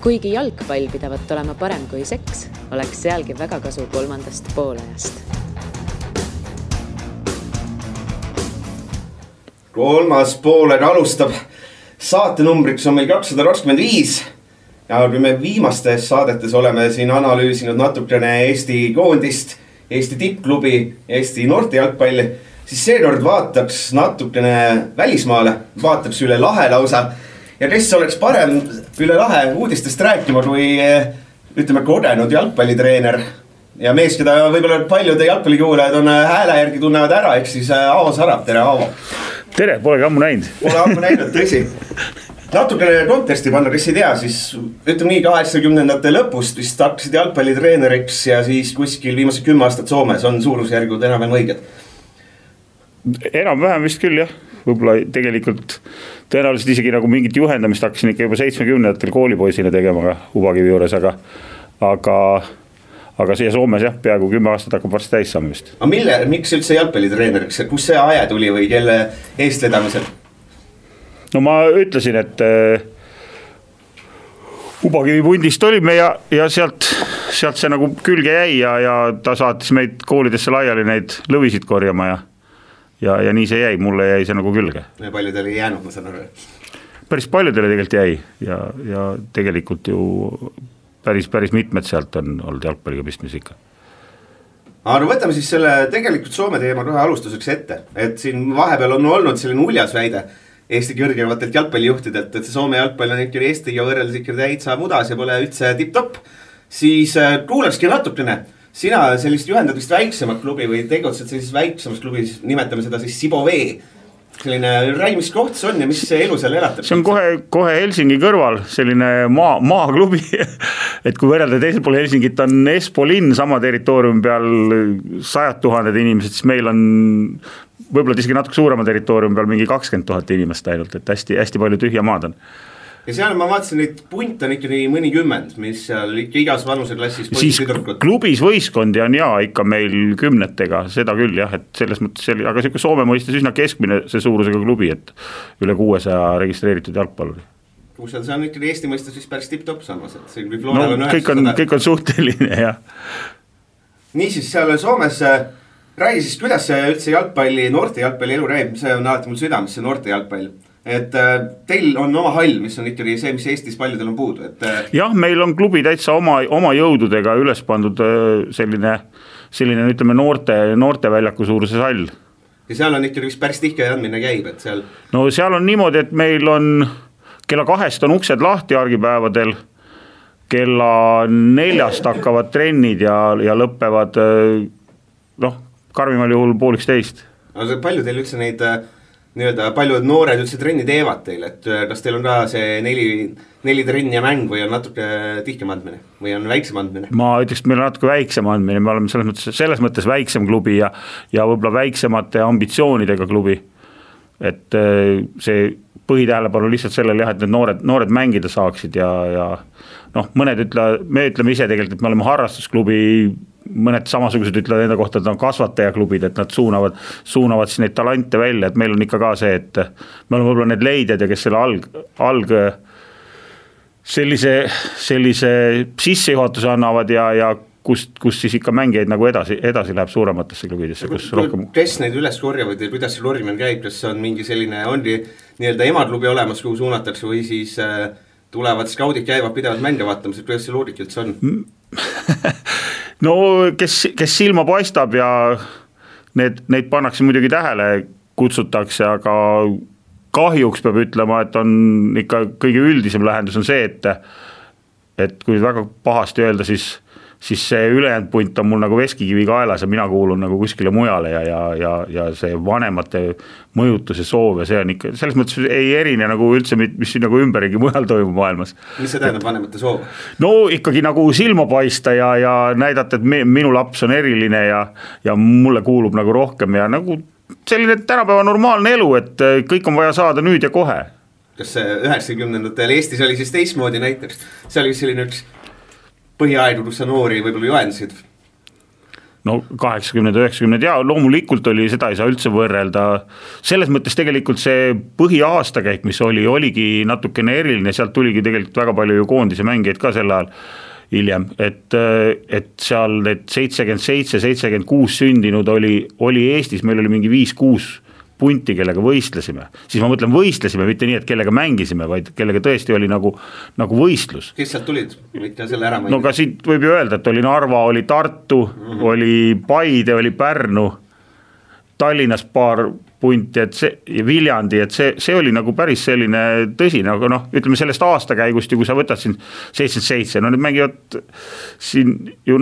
Kuigi jalgpall pidavat olema parem kui seks, oleks sealgi väga kasu kolmandast poolajast. Kolmas pooled alustab. Saatenumbriks on meil 225 ja kui me viimastes saadetes oleme siin analüüsinud natukene Eesti koondist, Eesti tippklubi, Eesti noorte jalgpalli, siis seekord vaataks natukene välismaale, vaataks üle lahe lausa. Ja kes oleks parem üle lahe uudistest rääkima kui ütleme kogenud jalgpallitreener ja mees, keda võib-olla paljude jalgpallikuulajad on hääle järgi tunnevad ära, ehk siis Aavo Sarab. Tere, Aavo! Tere, polegi ammu näinud. Pole ammu näinud, tõsi. Natukene konteksti panna, kes ei tea, siis ütleme nii 80-ndate lõpust vist hakkasid jalgpallitreeneriks ja siis kuskil viimased 10 aastat Soomes on suurusjärgud enam õiged. Enam-vähem vist küll, jah. Võib-olla tegelikult tõenäoliselt isegi nagu mingit juhendamist hakkasin ikka juba 70-ndatel koolipoisina tegema Ubakivi juures, aga siia Soomes jah, peaaegu 10 aastat hakkab varsti täis saama vist. Aga miks üldse jalgpallitreeneriks? Kus see aje tuli või kelle eestvedamisel? No ma ütlesin, et Ubakivi pundist olime ja sealt see nagu külge jäi ja ta saatis meid koolidesse laiali neid lõvisid korjama ja nii see jäi, mulle jäi see nagu külge. Ja paljudele ei jäänud, ma saan aru. Päris paljudele tegelikult jäi ja tegelikult ju päris mitmed sealt on olnud jalgpalliga pistmis ikka. Aga võtame siis selle tegelikult Soome teema kohe alustuseks ette, et siin vahepeal on olnud selline uljas väide Eesti kõrgematelt jalgpallijuhtidelt, et see Soome jalgpall on ikka Eestiga võrreldes ikka täitsa mudas ja pole üldse tipp-topp, siis kuulakski natukene. Sina sellist juhendad vist väiksemat klubi või tegutsed sellises väiksemas klubis, nimetame seda siis Sibovee. Selline räi, mis koht see on ja mis see elu seal elatab? See on kohe Helsingi kõrval, selline maaklubi, et kui võrrelda teisel pool Helsingit on Espoo linn sama territooriumi peal 100 000 inimesed, siis meil on võib-olla isegi natuke suurema territooriumi peal mingi 20 000 inimest ainult, et hästi palju tühja maad on. Ja seal ma vaatasin, et punt on ikka mõni 10, mis seal ikka igas vanuseklassis siis klubis võistkondi on ikka meil 10-tega, seda küll jah, et selles mõttes aga selline Soome mõistes üsna keskmine see suurusega klubi, et üle 600 registreeritud jalgpalluri. See on ikka Eesti mõistes vist päris tipp-topp samas, et see kui Floral on 900. Kõik on suhteline, jah. Niisiis seal Soomes räägi siis, kuidas see üldse jalgpalli, noorte jalgpalli elu räägib, see on alati mul südames, see noorte jalgpall. Et teil on oma hall, mis on ikkagi see, mis Eestis paljudel on puudu. Jah, meil on klubi täitsa oma jõududega üles pandud selline ütleme noorte väljaku suuruses hall. Ja seal on ikkagi päris tihke andmine käib, et seal... No seal on niimoodi, et meil on kella 2 on uksed lahti argipäevadel, kella 4 hakkavad trennid ja lõppevad karmimal juhul 11:30. Aga palju teil üldse neid... paljud noored üldse trenni teevad teil, et kas teil on ka see 4 trenni ja mäng või on natuke tihkem andmine või on väiksem andmine? Ma ütleks, et meil on natuke väiksem andmine, me oleme selles mõttes väiksem klubi ja võib-olla väiksemate ambitsioonidega klubi, et see põhitähelepanu lihtsalt sellel jah, et need noored mängida saaksid ja me ütleme ise tegelikult, et me oleme harrastusklubi, mõned samasugused ütlevad enda kohta, et on kasvatajaklubid, et nad suunavad siis neid talante välja, et meil on ikka ka see, et me oleme võib-olla need leidjad ja kes selle alg sellise sissejuhatuse annavad ja kus siis ikka mängijaid nagu edasi läheb suurematesse klubidesse. Kes neid üles korjavad ja kuidas see lorimine käib, kas on mingi selline, on nii-öelda emaklubi olemas, kuhu suunatakse või siis tulevad skaudid käivad pidevalt mänge vaatamas, et kuidas see loorik üldse on? No kes silma paistab ja neid pannakse muidugi tähele, kutsutakse, aga kahjuks peab ütlema, et on ikka kõige üldisem lähendus on see, et kui väga pahasti öelda, siis see ülejäänud punt on mul nagu veskikivi kaelas ja mina kuulun nagu kuskile mujale ja see vanemate mõjutus ja soov ja see on ikka, selles mõttes ei erine nagu üldse, mis nagu ümberigi mujal toimub maailmas. Mis see tähendab vanemate soov? No ikkagi nagu silma paista ja näidata, et minu laps on eriline ja mulle kuulub nagu rohkem ja nagu selline tänapäeva normaalne elu, et kõik on vaja saada nüüd ja kohe. Kas 90-ndatel Eestis oli siis teistmoodi näiteks? See oli selline üks põhiaegu, kus sa noori võib-olla juhendasid? no 80, 90 ja loomulikult oli, seda ei saa üldse võrrelda. Selles mõttes tegelikult see põhiaastakäik, mis oligi natukene eriline, sealt tuligi tegelikult väga palju ju koondise mängijaid ka sel ajal hiljem, et seal need 77, 76 sündinud oli Eestis, meil oli mingi 5-6 punti, kellega võistlesime. Siis ma mõtlen võistlesime, mitte nii, et kellega mängisime, vaid kellega tõesti oli nagu võistlus. Kes sealt tulid? Võite selle ära mainida. No ka siit võib ju öelda, et oli Narva, oli Tartu, oli Paide, oli Pärnu, Tallinnas paar punti, ja Viljandi, et see oli nagu päris selline tõsine, aga noh, ütleme sellest aastakäigust ju, kui sa võtad siin 77, no need mängivad siin ju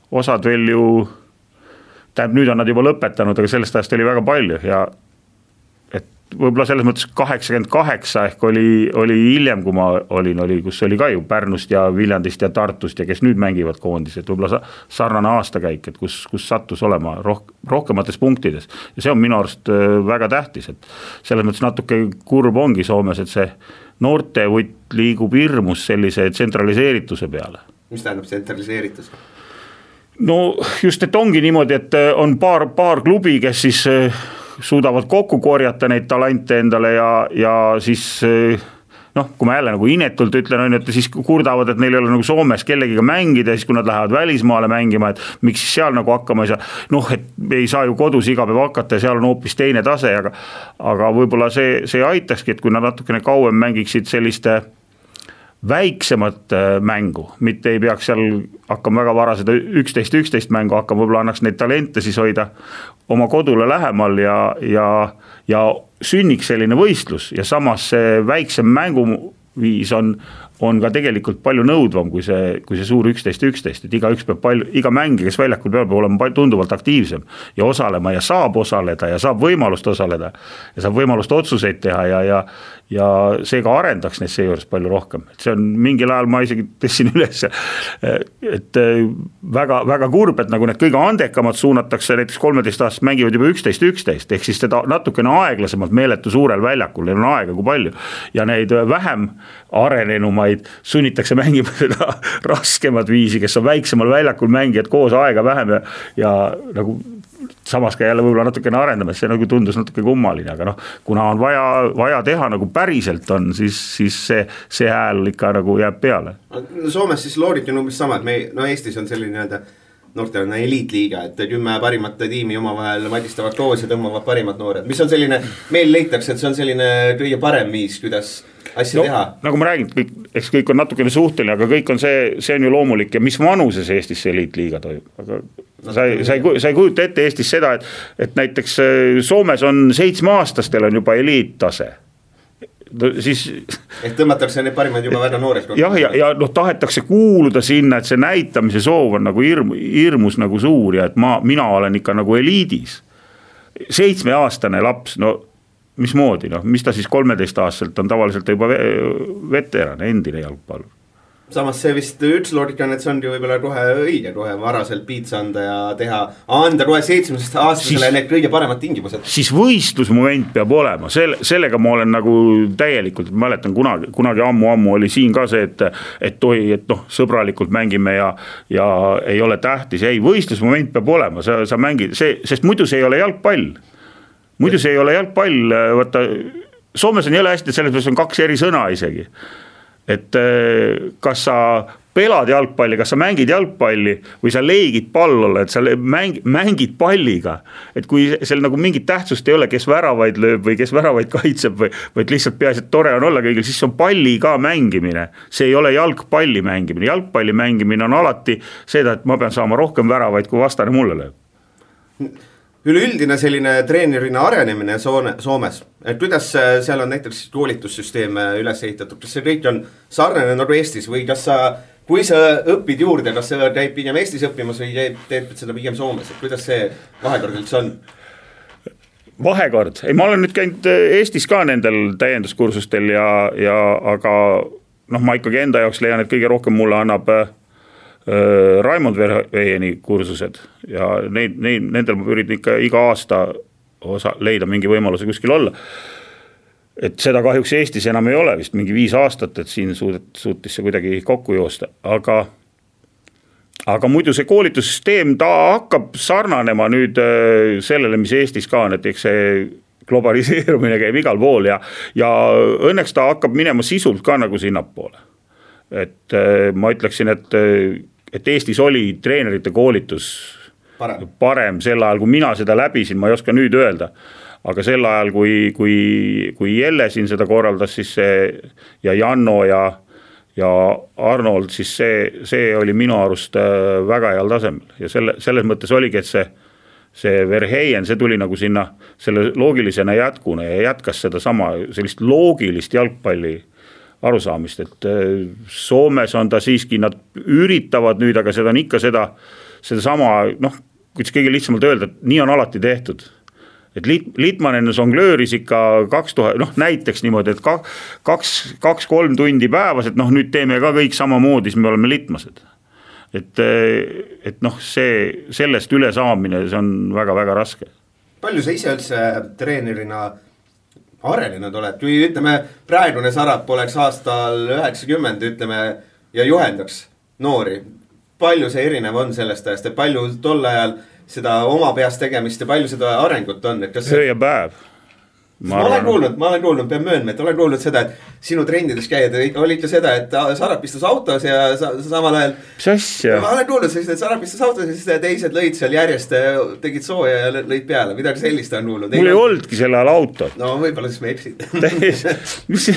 osad veel ju nüüd on nad juba lõpetanud, aga sellest ajast oli väga palju ja et võib-olla selles mõttes 88 ehk oli hiljem, kui ma olin, kus oli ka ju Pärnust ja Viljandist ja Tartust ja kes nüüd mängivad koondis, et võib-olla sarnane aastakäik, et kus sattus olema rohkemates punktides ja see on minu arust väga tähtis, et selles mõttes natuke kurb ongi Soomes, et see noortevutt liigub hirmus sellise tsentraliseerituse peale. Mis tähendab tsentraliseeritus? No just, et ongi niimoodi, et on paar klubi, kes siis suudavad kokku korjata neid talente endale ja siis kui ma jälle nagu inetult ütlen, et siis kurdavad, et neil ei ole nagu Soomes kellegiga mängida, siis kui nad lähevad välismaale mängima, et miks siis seal nagu hakkama ei saa, et ei saa ju kodus iga päev hakata ja seal on hoopis teine tase, aga võib-olla see aitakski, et kui nad natukene kauem mängiksid selliste väiksemat mängu, mitte ei peaks seal hakkama väga vara seda 11 mängu hakkama, võib-olla annaks neid talente siis hoida oma kodule lähemal ja sünniks selline võistlus ja samas see väiksem mänguviis on ka tegelikult palju nõudvam kui see suur 11, et iga mängija, kes väljakul peab olema tunduvalt aktiivsem ja osalema ja saab osaleda ja saab võimalust osaleda ja saab võimalust otsuseid teha ja see ka arendaks neid seejuures palju rohkem. Et see on mingil ajal ma isegi tõstsin üles, et väga, väga kurb, et nagu need kõige andekamad suunatakse, näiteks 13 aastast mängivad juba 11, ehk siis seda natukene aeglasemalt meeletu suurel väljakul, neil on aega kui palju ja neid vähem arenenumaid sunnitakse mängima seda raskemat viisi, kes on väiksemal väljakul mängijad koos aega vähem ja nagu samas ka jälle võib-olla natukene arendamas, see nagu tundus natuke kummaline, aga kuna on vaja teha nagu päriselt on, siis see hääl ikka nagu jääb peale. Soomes siis loodid on umbes sama, et Eestis on selline noortena eliitliiga, et 10 parimat tiimi omavahel madistavad koos ja tõmbavad parimad noored, mis on selline, meil leitakse, et see on selline kõige parem viis, kuidas asja teha. Nagu ma räägin, eks kõik on natukene suhteline, aga kõik on see on ju loomulik ja mis vanuses Eestis see eliitliiga toimub, aga sa ei kujuta ette Eestis seda, et näiteks Soomes on 7-aastastel on juba eliittase. Siis ehk tõmmatakse need parimad juba väga nooreks. Ja tahetakse kuuluda sinna, et see näitamise soov on nagu hirmus nagu suur ja et mina olen ikka nagu eliidis. 7-aastane laps, mismoodi, mis ta siis 13-aastaselt on tavaliselt juba veteran, endine jalgpallur. Samas see vist üks loogika on, et see on ju võib-olla kohe õige, kohe varaselt piitsa anda ja anda kohe 7-aastasele need kõige paremad tingimused. Siis võistlusmoment peab olema, sellega ma olen nagu täielikult, mäletan kunagi ammu oli siin ka see, et sõbralikult mängime ja ei ole tähtis, ei, võistlusmoment peab olema, sa mängid, sest muidu see ei ole jalgpall. Muidu see ei ole jalgpall, vaata, Soomes on jälle hästi, et selles on 2 eri sõna isegi. Et kas sa pelad jalgpalli, kas sa mängid jalgpalli või sa leigid pallolle, et sa mängid palliga. Et kui seal nagu mingit tähtsust ei ole, kes väravaid lööb või kes väravaid kaitseb või lihtsalt peaasi, et tore on olla kõigil, siis on palli ka mängimine. See ei ole jalgpalli mängimine. Jalgpalli mängimine on alati seda, et ma pean saama rohkem väravaid, kui vastane mulle lööb. Üleüldine selline treenerina arenemine Soomes, et kuidas seal on näiteks koolitussüsteem üles ehitatud, kas see kõik on sarnane nagu Eestis või kui sa õpid juurde, kas sa käib pigem Eestis õppimas või teed seda pigem Soomes, et kuidas see vahekord üldse on? Vahekord, ma olen nüüd käinud Eestis ka nendel täienduskursustel aga ma ikkagi enda jaoks leian, et kõige rohkem mulle annab Raimond Verheeni kursused ja nendel ma üritan ikka iga aasta leida mingi võimaluse kuskil olla. Et seda kahjuks Eestis enam ei ole vist mingi 5 aastat, et siin suutis see kuidagi kokku joosta, aga muidu see koolitussüsteem, ta hakkab sarnanema nüüd sellele, mis Eestis ka on, et eks see globaliseerumine käib igal pool ja õnneks ta hakkab minema sisult ka nagu sinnapoole. Et ma ütleksin, et Eestis oli treenerite koolitus parem sel ajal, kui mina seda läbisin, ma ei oska nüüd öelda. Aga sel ajal, kui Jelle siin seda korraldas, siis see ja Janno ja Arnold, siis see oli minu arust väga heal tasemel ja selles mõttes oligi, et see Verheyen, see tuli nagu sinna selle loogilisena jätkuna ja jätkas seda sama sellist loogilist jalgpalli arusaamist, et Soomes on ta siiski, nad üritavad nüüd, aga seda on ikka seda sama, kuidas kõige lihtsamalt öelda, et nii on alati tehtud. Et Litmanen songlööris ikka 2000, näiteks niimoodi, et 2-3 tundi päevas, et nüüd teeme ka kõik samamoodi, siis me oleme litmased. Et sellest üle saamine, see on väga-väga raske. Palju sa ise üldse treenerina arenenud oled? Kui ütleme, praegune Sarap oleks aastal 90, ütleme, ja juhendaks noori. Palju see erinev on sellest ajast ja palju tol ajal seda oma peast tegemist ja palju seda arengut on? Öö ja päev. Ma olen kuulnud, pean möönma, et olen kuulnud seda, et sinu trendides käied oli ikka seda, et Sarap istus autos ja samal ajal. Mis asja? Ma olen kuulnud, et Sarap istus autos ja siis teised lõid seal järjest, tegid sooja ja lõid peale. Midagi sellist on kuulnud. Mul ei oldki selle ajal autot. No võib-olla siis me eksid. Mis?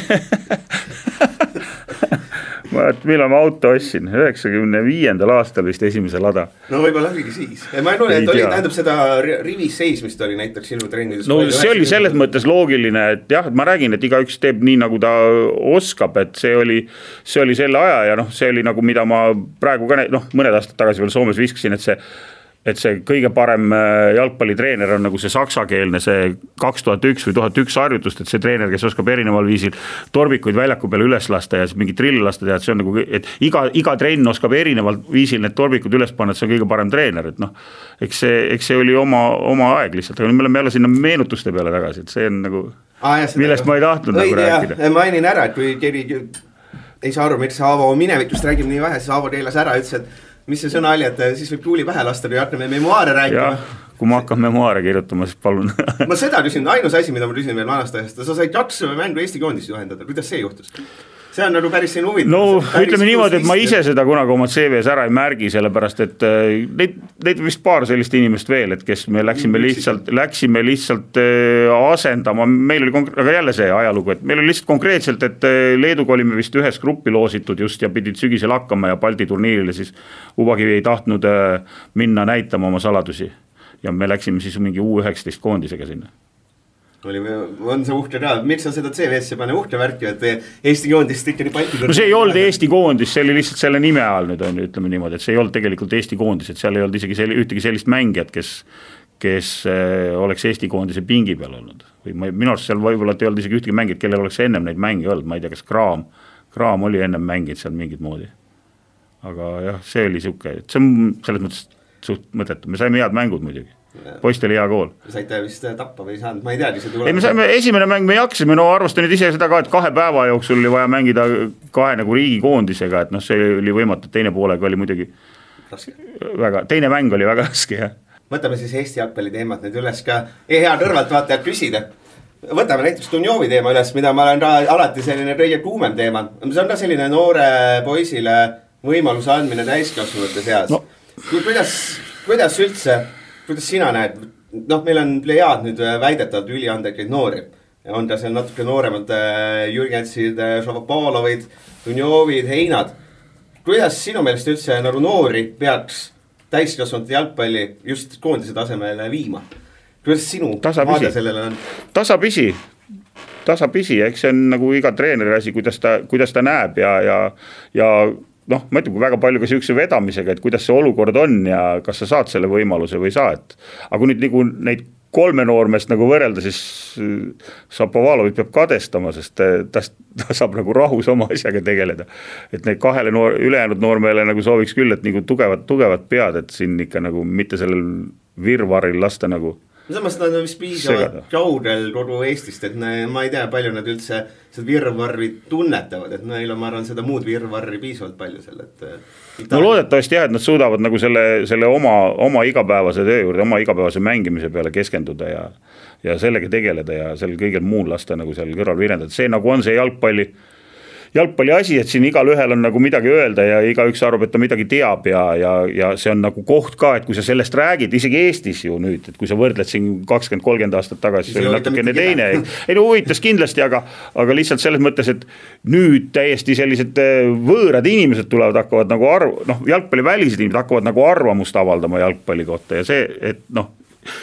Millal ma auto ostsin? 95. aastal vist esimese lada. No võib-olla oligi siis. Ma ei kuule, et oli, tähendab seda rivis seismist oli näiteks sinu trennides. No see oli selles mõttes loogiline, et jah, ma räägin, et igaüks teeb nii, nagu ta oskab, et see oli selle aja ja see oli nagu, mida ma praegu ka mõned aastad tagasi veel Soomes viskasin, et see kõige parem jalgpallitreener on nagu see saksakeelne, see 2001 või 1001 harjutust, et see treener, kes oskab erineval viisil torbikuid väljaku peale üles lasta ja mingi trille lasta teha, et see on nagu, et iga trenn oskab erineval viisil need torbikud üles panna, et see on kõige parem treener, et eks see oli oma aeg lihtsalt, aga me oleme jälle sinna meenutuste peale tagasi, et see on nagu, millest ma ei tahtnud nagu rääkida. Mainin ära, et kui keegi ei saa aru, miks Aavo minevikust räägib nii vähe, siis Aavo keelas ära, ütles, et mis see sõna oli, et siis võib tuuli pähe lasta, kui hakkame memoaare rääkima. Ja, kui ma hakkan memoaare kirjutama, siis palun. Ma seda küsin, ainus asi, mida ma küsin veel vanast ajast, sa said 2 mängu Eesti koondist juhendada, kuidas see juhtus? See on nagu päris siin huvitav. No ütleme niimoodi, et ma ise seda kunagi oma CV-s ära ei märgi, sellepärast, et neid vist paar sellist inimest veel, et kes me läksime lihtsalt asendama, meil oli, aga jälle see ajalugu, et meil oli lihtsalt konkreetselt, et Leeduga olime vist ühes gruppi loositud just ja pidid sügisel hakkama ja Balti turniirile, siis Uvakivi ei tahtnud minna näitama oma saladusi ja me läksime siis mingi U19 koondisega sinna. On see uhke ka, miks on seda CV-sse pane uhke värki, et Eesti koondist ikka nii Balti no see ei olnud Eesti koondis, see oli lihtsalt selle nime all nüüd on, ütleme niimoodi, et see ei olnud tegelikult Eesti koondis, et seal ei olnud isegi ühtegi sellist mängijat, kes oleks Eesti koondise pingi peal olnud või minu arust seal võib-olla ei olnud isegi ühtegi mängijat, kellel oleks ennem neid mänge olnud, ma ei tea, kas Kraam oli ennem mängid seal mingid moodi, aga jah, see oli siuke, et see on selles mõttes suht mõttetu, me saime head mängud muidugi. Poist oli hea kool. Saite vist tappa või ei saanud, ma ei teagi see ei, me saime esimene mäng, me jaksime, arvasta nüüd ise seda ka, et 2 päeva jooksul oli vaja mängida 2 nagu riigikoondisega, et see oli võimatu, teine poolega oli muidugi väga, teine mäng oli väga raske, jah. Võtame siis Eesti jalgpalli teemat nüüd üles ka, hea kõrvalt vaatajad küsida. Võtame näiteks Dunjovi teema üles, mida ma olen ka alati selline kõige kuumem teema. See on ka selline noore poisile võimaluse andmine täiskasvanute seas. No. Kuidas üldse, kuidas sina näed, meil on plejaad nüüd väidetavalt üliandekaid noori. On ka seal natuke nooremad Jürgensid, Šavopalovid, Dunjovid, Heinad. Kuidas sinu meelest üldse nagu noori peaks täiskasvanute jalgpalli just koondise tasemele viima? Kuidas sinu vaade sellele on? Tasapisi, eks see on nagu iga treeneri asi, kuidas ta näeb ja ma ütlen, kui väga palju ka siukse vedamisega, et kuidas see olukord on ja kas sa saad selle võimaluse või saad. Aga kui nüüd nagu neid 3 noormest nagu võrrelda, siis Šapovalovit peab kadestama, sest ta saab nagu rahus oma asjaga tegeleda. Et neid 2 ülejäänud noormeele nagu sooviks küll, et nagu tugevat pead, et siin ikka nagu mitte sellel virvaril lasta nagu samas nad on vist piisavalt kaudel kogu Eestist, et ma ei tea, palju nad üldse seda virvarri tunnetavad, et neil on, ma arvan, seda muud virvarri piisavalt palju seal, et no loodetavasti jah, et nad suudavad nagu selle oma igapäevase töö juurde, oma igapäevase mängimise peale keskenduda ja sellega tegeleda ja sel kõigel muul lasta nagu seal kõrval virendada. See nagu on see jalgpalli asi, et siin igal ühel on nagu midagi öelda ja igaüks arvab, et ta midagi teab ja see on nagu koht ka, et kui sa sellest räägid, isegi Eestis ju nüüd, et kui sa võrdled siin 20-30 aastat tagasi, see oli natukene teine. Ei no huvitas kindlasti, aga lihtsalt selles mõttes, et nüüd täiesti sellised võõrad inimesed tulevad, hakkavad nagu jalgpalli välised inimesed hakkavad nagu arvamust avaldama jalgpalli kohta ja see, et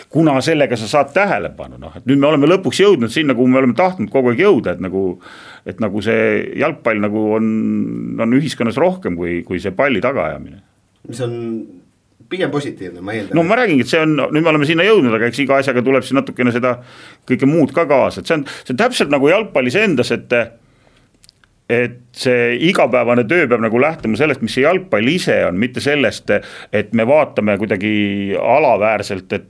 kuna sellega sa saad tähelepanu, et nüüd me oleme lõpuks jõudnud sinna, kuhu me oleme tahtnud kogu aeg jõuda, et nagu see jalgpall nagu on ühiskonnas rohkem kui see palli tagaajamine. Mis on pigem positiivne, ma eeldan. No ma räägin, et nüüd me oleme sinna jõudnud, aga eks iga asjaga tuleb siin natukene seda kõike muud ka kaasa, et see on täpselt nagu jalgpallis endas, et see igapäevane töö peab nagu lähtuma sellest, mis see jalgpall ise on, mitte sellest, et me vaatame kuidagi alaväärselt, et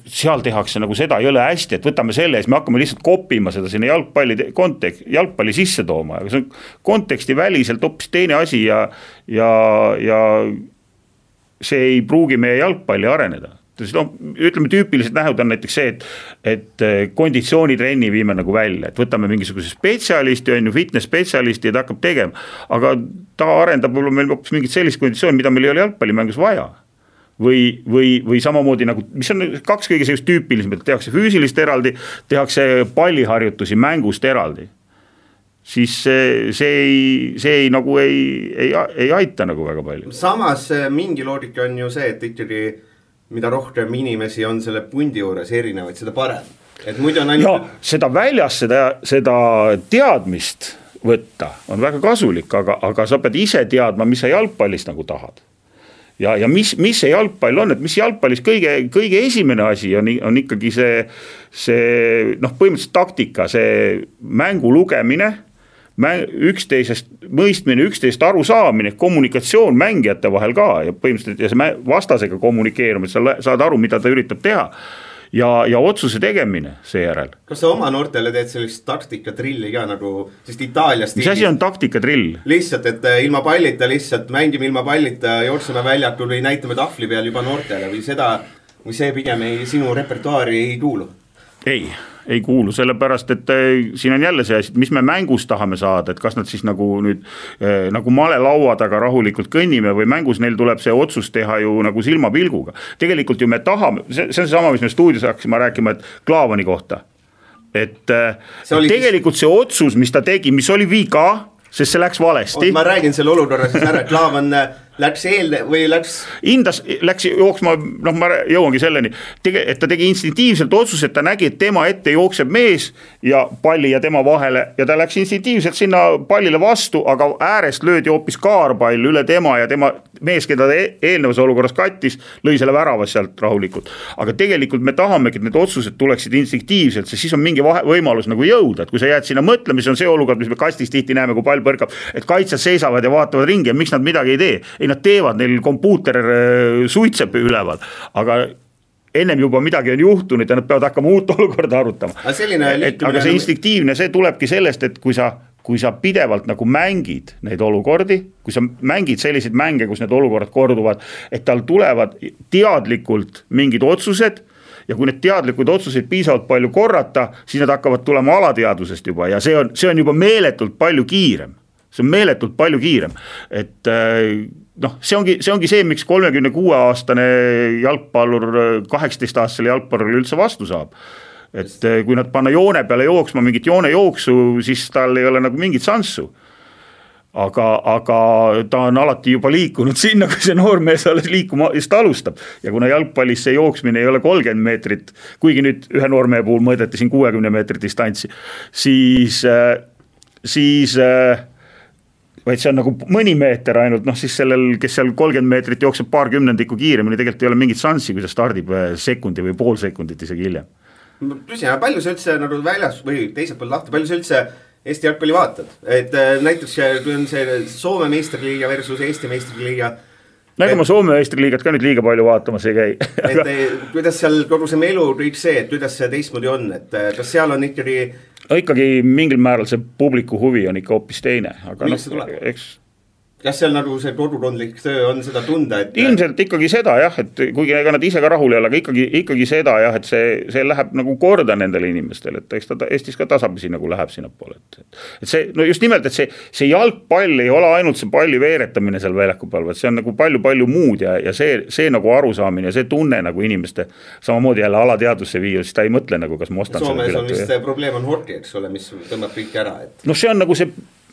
seal tehakse nagu seda jõle hästi, et võtame selle ja siis me hakkame lihtsalt kopima seda sinna jalgpalli sisse tooma, aga see on konteksti väliselt hoopis teine asi ja see ei pruugi meie jalgpalli areneda. Ütleme tüüpilised nähud on näiteks see, et konditsioonitrenni viime nagu välja, et võtame mingisuguse spetsialisti, fitness spetsialisti ja ta hakkab tegema, aga ta arendab võib-olla meil hoopis mingit sellist konditsiooni, mida meil ei ole jalgpallimängus vaja. Või samamoodi nagu, mis on kaks kõige sellist tüüpilised, tehakse füüsilist eraldi, tehakse palliharjutusi mängust eraldi. Siis see ei aita nagu väga palju. Samas mingi loogika on ju see, et ikkagi mida rohkem inimesi on selle pundi juures erinevaid, seda parem. Et muidu on ainult... seda väljas, seda teadmist võtta on väga kasulik, aga sa pead ise teadma, mis sa jalgpallist nagu tahad. Ja mis see jalgpall on, et mis jalgpallis kõige esimene asi on ikkagi see põhimõtteliselt taktika, see mängu lugemine, üksteisest mõistmine, üksteisest aru saamine, kommunikatsioon mängijate vahel ka ja põhimõtteliselt ja see vastasega kommunikeerumine, sa saad aru, mida ta üritab teha ja otsuse tegemine seejärel. Kas sa oma noortele teed sellist taktikatrilli ka nagu, sest Itaalias mis asi on taktikadrill? Lihtsalt, et ilma pallita lihtsalt mängime ilma pallita, jookseme väljakul või näitame tahvli peal juba noortele või see pigem sinu repertuaari ei kuulu? Ei kuulu, sellepärast, et siin on jälle see asi, mis me mängus tahame saada, et kas nad siis nagu nüüd nagu malelaua taga rahulikult kõnnime või mängus neil tuleb see otsus teha ju nagu silmapilguga. Tegelikult ju me tahame, see on see sama, mis me stuudios hakkasime rääkima, et Klaavani kohta. Et tegelikult see otsus, mis ta tegi, mis oli viga, sest see läks valesti. Ma räägin selle olukorra siis ära, Klaavan läks läks jooksma, ma jõuangi selleni, et ta tegi instinktiivselt otsuse, et ta nägi, et tema ette jookseb mees ja palli ja tema vahele ja ta läks instinktiivselt sinna pallile vastu, aga äärest löödi hoopis kaarpall üle tema ja tema mees, keda ta eelnevas olukorras kattis, lõi selle väravas sealt rahulikult. Aga tegelikult me tahamegi, et need otsused tuleksid instinktiivselt, sest siis on mingi võimalus nagu jõuda, et kui sa jääd sinna mõtlema, siis on see olukord, mis me kastis tihti näeme, kui pall põrkab, et kaitsjad seisavad ja vaatavad ringi ja miks nad midagi ei tee. Ei, nad teevad, neil kompuuter suitseb üleval, aga ennem juba midagi on juhtunud ja nad peavad hakkama uut olukorda arutama. Aga see instinktiivne, see tulebki sellest, et kui sa pidevalt nagu mängid neid olukordi, kui sa mängid selliseid mänge, kus need olukorrad korduvad, et tal tulevad teadlikult mingid otsused ja kui need teadlikud otsuseid piisavalt palju korrata, siis need hakkavad tulema alateadvusest juba ja see on juba meeletult palju kiirem. See on meeletult palju kiirem, et see ongi see, miks 36-aastane jalgpallur 18-aastasele jalgpallurile üldse vastu saab. Et kui nad panna joone peale jooksma mingit joonejooksu, siis tal ei ole nagu mingit sansu. Aga ta on alati juba liikunud sinna, kui see noormees alles liikuma just alustab. Ja kuna jalgpallis see jooksmine ei ole 30 meetrit, kuigi nüüd ühe noormehe puhul mõõdeti siin 60 meetrit distantsi, siis vaid see on nagu mõni meeter ainult, siis sellel, kes seal 30 meetrit jookseb paar kümnendikku kiiremini, tegelikult ei ole mingit sansi, kui ta stardib sekundi või pool sekundit isegi hiljem. Küsin, palju sa üldse nagu väljas või teiselt pool lahti, palju sa üldse Eesti jalgpalli vaatad? Et näiteks kui on see Soome meistriliiga versus Eesti meistriliiga. Nagu ma Soome meistriliigat ka nüüd liiga palju vaatamas ei käi. Kuidas seal kogu see melu kõik see, et kuidas see teistmoodi on, et kas seal on ikkagi mingil määral see publiku huvi on ikka hoopis teine. Aga kas seal nagu see kodukondlik töö on seda tunda, et ilmselt ikkagi seda jah, et kuigi ega nad ise ka rahul ei ole, aga ikkagi seda jah, et see läheb nagu korda nendele inimestele, et eks ta Eestis ka tasapisi nagu läheb sinna poole, et see, no just nimelt, et see jalgpall ei ole ainult see palli veeretamine seal väljaku peal, vaid see on nagu palju muud ja see nagu arusaamine ja see tunne nagu inimeste samamoodi jälle alateadvusse viia, siis ta ei mõtle nagu, kas ma ostan Soomes selle pileti. Soomes on vist probleem on hoki, eks ole, mis tõmbab kõik ära, et no see on nagu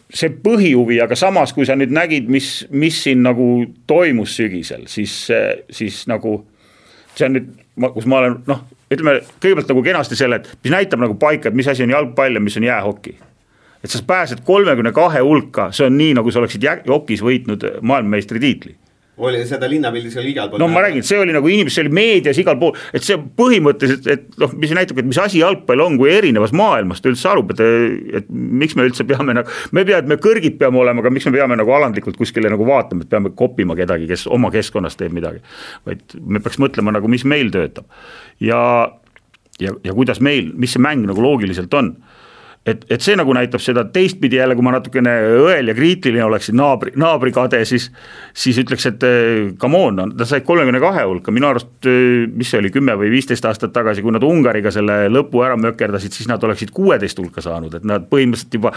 see põhihuvi, aga samas, kui sa nüüd nägid, mis siin nagu toimus sügisel, siis nagu see on nüüd, kus ma olen, ütleme kõigepealt nagu kenasti selle, et mis näitab nagu paika, et mis asi on jalgpall ja mis on jäähoki. Et sa pääsed 32 hulka, see on nii, nagu sa oleksid jokis võitnud maailmameistri tiitli. Oli seda linnapildis oli igal pool. No ma räägin, see oli nagu inimesed, see oli meedias igal pool, et see põhimõtteliselt, et mis näitab, et mis asi jalgpall on, kui erinevas maailmast üldse arub, et miks me üldse peame nagu, me kõrgid peame olema, aga miks me peame nagu alandlikult kuskile nagu vaatama, et peame koppima kedagi, kes oma keskkonnas teeb midagi, vaid me peaks mõtlema nagu, mis meil töötab ja kuidas meil, mis see mäng nagu loogiliselt on. Et see nagu näitab seda teistpidi jälle, kui ma natukene õel ja kriitiline oleksin naabri kade, siis ütleks, et come on, ta sai 32 hulka, minu arust, mis see oli 10 või 15 aastat tagasi, kui nad Ungariga selle lõpu ära mökerdasid, siis nad oleksid 16 hulka saanud, et nad põhimõtteliselt juba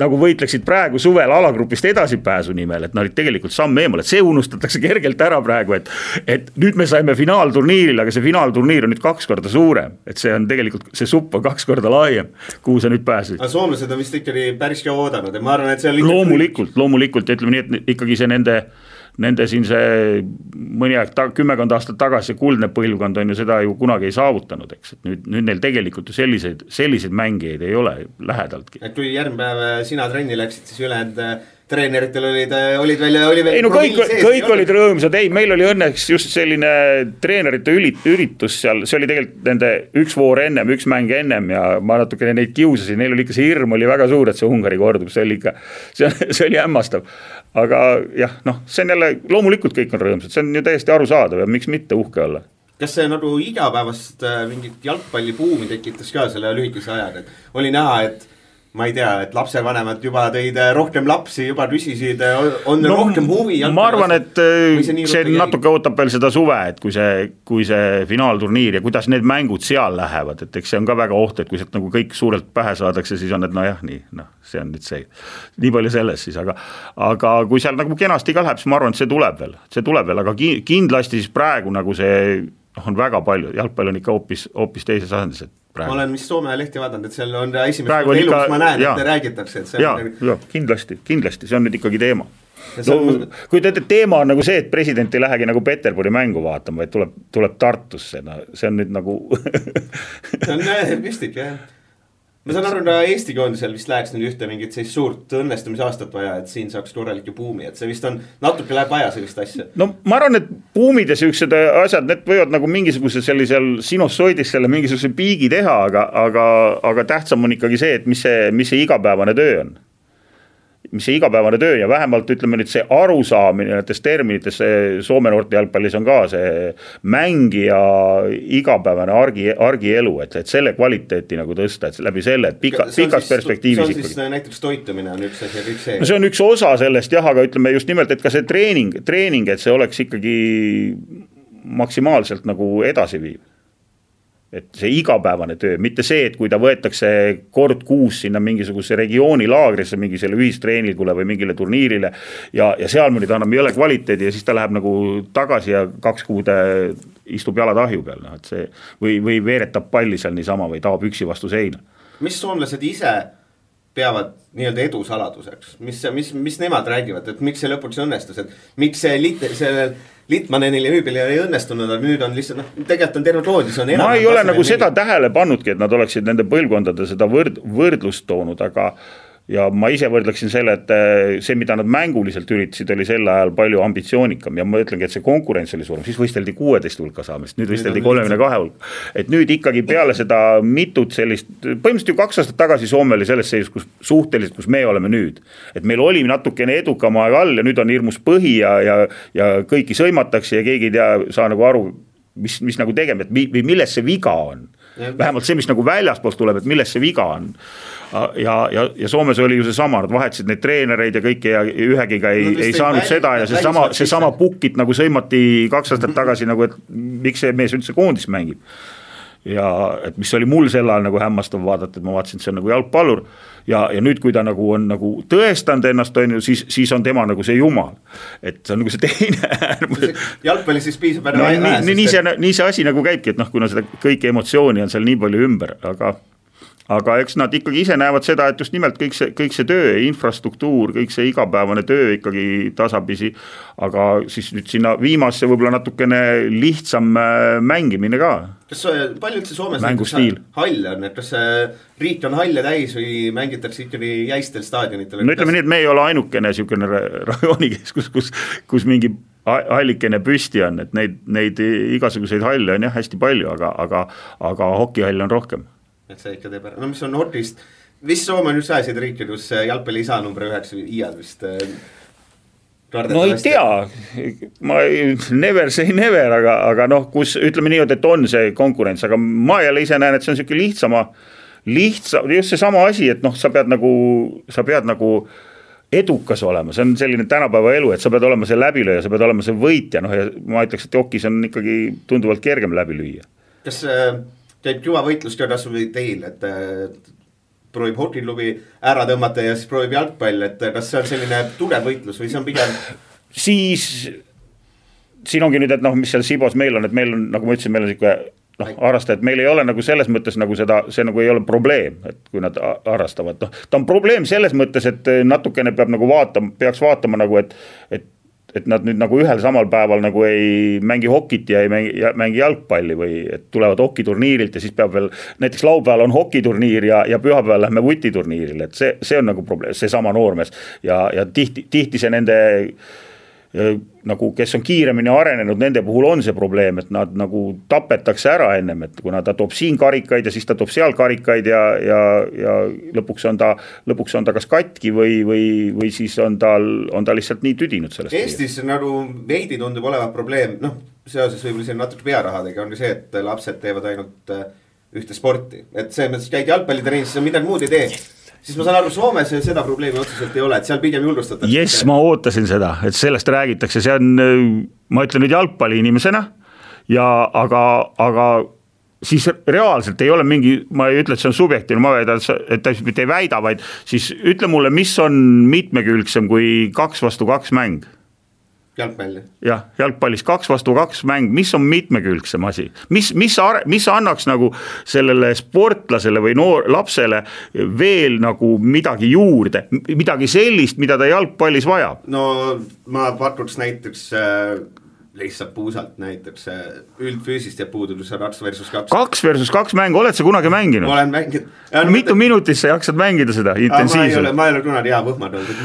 nagu võitleksid praegu suvel alagrupist edasipääsu nimel, et nad olid tegelikult samm eemal, et see unustatakse kergelt ära praegu, et nüüd me saime finaalturniiril, aga see finaalturniir on nüüd 2 korda suurem, et see on tegelikult, see supp on 2 korda laiem, kuhu sa nüüd pääsid. Aga soomlased on vist ikkagi päris ka oodanud ja ma arvan, et see on loomulikult ja ütleme nii, et ikkagi see nende siin see mõni aeg 10 aastat tagasi kuldne põlvkond on ju seda ju kunagi ei saavutanud, eks, et nüüd neil tegelikult ju selliseid mängijaid ei ole lähedaltki. Et kui järgmine päev sina trenni läksid, siis ülejäänud treeneritel olid veel ei no kõik olid rõõmsad, ei meil oli õnneks just selline treenerite üritus seal, see oli tegelikult nende üks voor ennem, üks mäng ennem ja ma natukene neid kiusasin, neil oli ikka see hirm oli väga suur, et see Ungari kordub, see oli hämmastav, aga jah, see on jälle, loomulikult kõik on rõõmsad, see on ju täiesti arusaadav ja miks mitte uhke olla. Kas see nagu igapäevast mingit jalgpallibuumi tekitas ka selle lühikese ajaga, et oli näha, et ma ei tea, et lapsevanemad juba tõid rohkem lapsi, juba küsisid, on rohkem huvi. Ma arvan, et see natuke ootab veel seda suve, et kui see finaalturniir ja kuidas need mängud seal lähevad, et eks see on ka väga oht, et kui sealt nagu kõik suurelt pähe saadakse, siis on, et see on nüüd see. Nii palju selles siis, aga kui seal nagu kenasti ka läheb, siis ma arvan, et see tuleb veel, aga kindlasti siis praegu nagu see on väga palju, jalgpall on ikka hoopis teises asendis, et praegu. Ma olen vist Soome lehti vaadanud, et seal on esimest elus ma näen, et räägitakse. Kindlasti, see on nüüd ikkagi teema. Kui teema on nagu see, et president ei lähegi nagu Peterburi mängu vaatama, vaid tuleb Tartusse, see on nüüd nagu see on müstik, jah. Ma saan aru, Eesti koondisel vist läheks nüüd ühte mingit sellist suurt õnnestumisaastat vaja, et siin saaks korralik buumi, et see vist on, natuke läheb vaja sellist asja. No ma arvan, et buumid ja sellised asjad, need võivad nagu mingisuguse sellisel sinusoidis selle mingisuguse piigi teha, aga tähtsam on ikkagi see, et mis see igapäevane töö on. Mis see igapäevane töö ja vähemalt ütleme nüüd see arusaamine näiteks terminites Soome noorte jalgpallis on ka see mängija igapäevane argielu, et selle kvaliteeti nagu tõsta, et läbi selle, et pikas perspektiivis. See on siis näiteks toitumine on üks asi ja kõik see. No see on üks osa sellest jah, aga ütleme just nimelt, et ka see treening, et see oleks ikkagi maksimaalselt nagu edasi viiv. Et see igapäevane töö, mitte see, et kui ta võetakse kord kuus sinna mingisuguse regiooni laagrisse, mingi selle ühistreeningule või mingile turniirile ja seal mõni ta annab jõle kvaliteedi ja siis ta läheb nagu tagasi ja 2 kuud istub jalad ahju peal, et see, või veeretab palli seal niisama või taab üksi vastu seina. Mis soomlased ise peavad nii-öelda edu saladuseks? Mis nemad räägivad, et miks see lõpuks õnnestus, et miks see Litmanenil ja Hüübel ei õnnestunud, aga nüüd on lihtsalt, tegelikult on terve koondis. Ma ei ole nagu seda tähele pannudki, et nad oleksid nende põlvkondade seda võrdlust toonud, aga ja ma ise võrdleksin selle, et see, mida nad mänguliselt üritasid, oli sel ajal palju ambitsioonikam ja ma ütlengi, et see konkurents oli suurem, siis võisteldi 16 hulka saamist, nüüd võisteldi 32 hulka. Et nüüd ikkagi peale seda mitut sellist, põhimõtteliselt ju 2 aastat tagasi Soome oli selles seisus, kus suhteliselt, kus me oleme nüüd. Et meil oli natukene edukam aeg all ja nüüd on hirmus põhi ja kõiki sõimatakse ja keegi ei tea, saa nagu aru, mis nagu tegema, et milles see viga on. Vähemalt see, mis nagu väljaspoolt tuleb, et milles see viga on. Ja Soomes oli ju see sama, nad vahetasid neid treenereid ja kõike ja ühegiga ei saanud seda ja see sama pukit nagu sõimati 2 aastat tagasi nagu, et miks see mees üldse koondis mängib. Ja et mis oli mul sel ajal nagu hämmastav vaadata, et ma vaatasin, et see on nagu jalgpallur ja nüüd, kui ta nagu on nagu tõestanud ennast, on ju, siis on tema nagu see jumal. Et see on nagu see teine. Jalgpalli siis piisab ära nii see asi nagu käibki, et kuna seda kõiki emotsiooni on seal nii palju ümber, aga eks nad ikkagi ise näevad seda, et just nimelt kõik see töö, infrastruktuur, kõik see igapäevane töö ikkagi tasapisi, aga siis nüüd sinna viimasse võib-olla natukene lihtsam mängimine ka. Kas palju üldse Soomes hall on, et kas riik on halle täis või mängitakse ikkagi jäistel staadionitel? No ütleme nii, et me ei ole ainukene niisugune rajoonikeskus, kus mingi hallikene püsti on, et neid igasuguseid halle on jah hästi palju, aga hokihall on rohkem. Et see ikka teeb ära. No mis on Nordist, vist Soome on just ajasid riike, kus jalgpalli ei saa number 9 iiad vist no ei tea, ma never say never, aga kus ütleme nii, et on see konkurents, aga ma jälle ise näen, et see on selline lihtsam, just see sama asi, et sa pead nagu edukas olema, see on selline tänapäeva elu, et sa pead olema see läbilööja, sa pead olema see võitja, ja ma ütleks, et jokis on ikkagi tunduvalt kergem läbi lüüa. Kas käib juba võitlus ka kasvõi teil, et proovib hokiklubi ära tõmmata ja siis proovib jalgpall, et kas see on selline tugev võitlus või see on pigem? Siis siin ongi nüüd, et mis seal Sibos meil on, et meil on, nagu ma ütlesin, meil on siuke harrastajad, meil ei ole nagu selles mõttes nagu seda, see nagu ei ole probleem, et kui nad harrastavad, ta on probleem selles mõttes, et natukene peab nagu peaks vaatama nagu, et nad nüüd nagu ühel samal päeval nagu ei mängi hokit ja ei mängi jalgpalli või et tulevad hokiturniirilt ja siis peab veel, näiteks laupäeval on hokiturniir ja pühapäeval lähme vutiturniiril, et see on nagu probleem, see sama noormees ja tihti see nende nagu, kes on kiiremini arenenud, nende puhul on see probleem, et nad nagu tapetakse ära ennem, et kuna ta toob siin karikaid ja siis ta toob seal karikaid ja lõpuks on ta kas katki või siis on ta lihtsalt nii tüdinud sellest. Eestis nagu veidi tundub olevat probleem, seoses võib-olla siin natuke pearahadega on see, et lapsed teevad ainult ühte sporti, et see mõttes käid jalgpallitrennis, midagi muud ei tee. Siis ma saan aru, Soomes seda probleemi otseselt ei ole, et seal pigem julgustatakse. Yes, ma ootasin seda, et sellest räägitakse, see on, ma ütlen nüüd jalgpalli inimesena, aga siis reaalselt ei ole mingi, ma ei ütle, et see on subjektiivne, ma väidan, et ta mitte ei väida, vaid siis ütle mulle, mis on mitmekülgsem kui 2 vastu 2 mäng. Jalgpalli. Jah, jalgpallis 2 vastu 2 mäng, mis on mitmekülgsem asi? Mis annaks nagu sellele sportlasele või lapsele veel nagu midagi juurde, midagi sellist, mida ta jalgpallis vajab? No ma pakuks näiteks lihtsalt puusalt näiteks üldfüüsist ja puudus 2 versus 2. 2 versus 2 mäng, oled sa kunagi mänginud? Olen mänginud. Mitu minutit sa jaksad mängida seda intensiivselt? Ma ei ole kunagi hea võhmad olnud.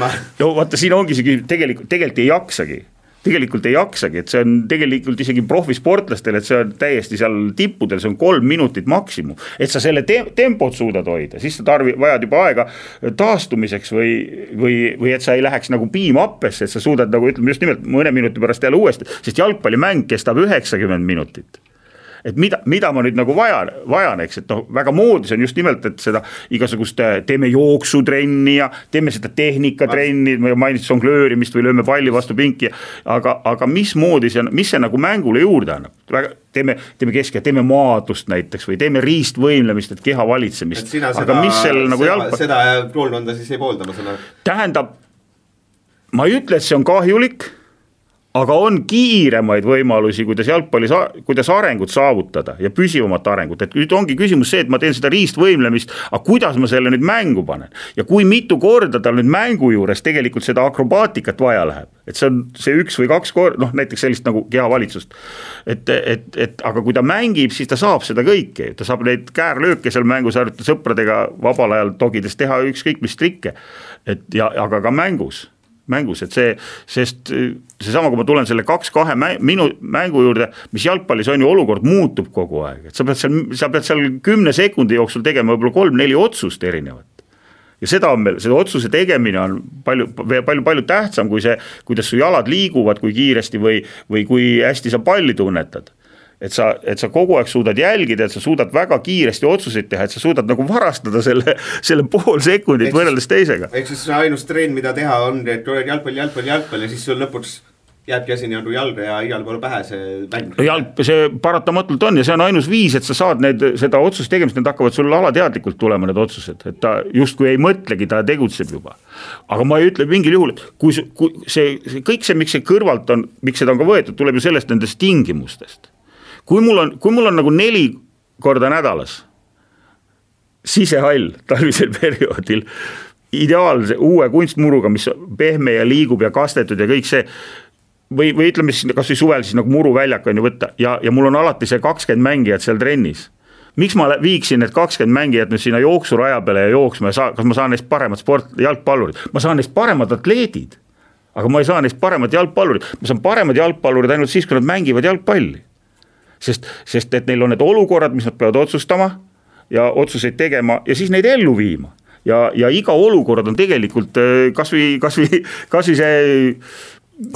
Vaata, siin ongi see tegelikult ei jaksagi. Et see on tegelikult isegi profisportlastel, et see on täiesti seal tippudel, see on 3 minutit maksimum, et sa selle tempot suudad hoida, siis sa vajad juba aega taastumiseks või et sa ei läheks nagu piimappesse, et sa suudad nagu ütleme just nimelt mõne minuti pärast jälle uuesti, sest jalgpallimäng kestab 90 minutit. Et mida ma nüüd nagu vajan, eks, et väga moodis on just nimelt, et seda igasugust teeme jooksutrenni ja teeme seda tehnikatrenni, mainitud songlöörimist või lööme palli vastu pinki, aga mis moodis ja mis see nagu mängule juurde annab? Teeme teeme maadlust näiteks või teeme riistvõimlemist, et keha valitsemist. Aga mis sellel nagu seda koolkonda siis ei poolda, ma sõna? Tähendab, ma ei ütle, et see on kahjulik, aga on kiiremaid võimalusi, kuidas arengut saavutada ja püsivamat arengut, et nüüd ongi küsimus see, et ma teen seda riistvõimlemist, aga kuidas ma selle nüüd mängu panen ja kui mitu korda tal nüüd mängu juures tegelikult seda akrobaatikat vaja läheb, et see on see 1 või 2 korda, noh näiteks sellist nagu kehavalitsust, et aga kui ta mängib, siis ta saab seda kõike, ta saab neid käärlööke seal mängus harjutada sõpradega vabal ajal togides teha ükskõik mis trikke, aga ka mängus, et sest seesama, kui ma tulen selle 2-2 mängu juurde, mis jalgpallis on ju olukord muutub kogu aeg, et sa pead seal 10 sekundi jooksul tegema võib-olla 3-4 otsust erinevat. Ja seda on meil, seda otsuse tegemine on palju tähtsam kui see, kuidas su jalad liiguvad, kui kiiresti või kui hästi sa palli tunnetad. Et sa kogu aeg suudad jälgida, et sa suudad väga kiiresti otsuseid teha, et sa suudad nagu varastada selle pool sekundit võrreldes teisega. Ehk siis ainus treen, mida teha on, et jalgpall ja siis sul lõpuks jääbki asi nagu jalga ja igal pool pähe see mäng. See paratamatult on ja see on ainus viis, et sa saad seda otsust tegemist, need hakkavad sul alateadlikult tulema need otsused, et ta justkui ei mõtlegi, ta tegutseb juba. Aga ma ei ütle mingil juhul, et kui kõik see, miks see kõrvalt on, miks seda on ka võetud, tuleb ju sellest nendest tingimustest. Kui mul on nagu 4 korda nädalas sisehall talvisel perioodil ideaalse uue kunstmuruga, mis pehme ja liigub ja kastetud ja kõik see, või ütleme siis kas või suvel siis nagu muruväljak on ju võtta ja mul on alati see 20 mängijat seal trennis. Miks ma viiksin need 20 mängijat nüüd sinna jooksuraja peale ja jooksma ja kas ma saan neist paremad jalgpallurid? Ma saan neist paremad atleedid, aga ma ei saa neist paremad jalgpallurid. Ma saan paremad jalgpallurid ainult siis, kui nad mängivad jalgpalli. Sest et neil on need olukorrad, mis nad peavad otsustama ja otsuseid tegema ja siis neid ellu viima. Ja iga olukord on tegelikult kas või see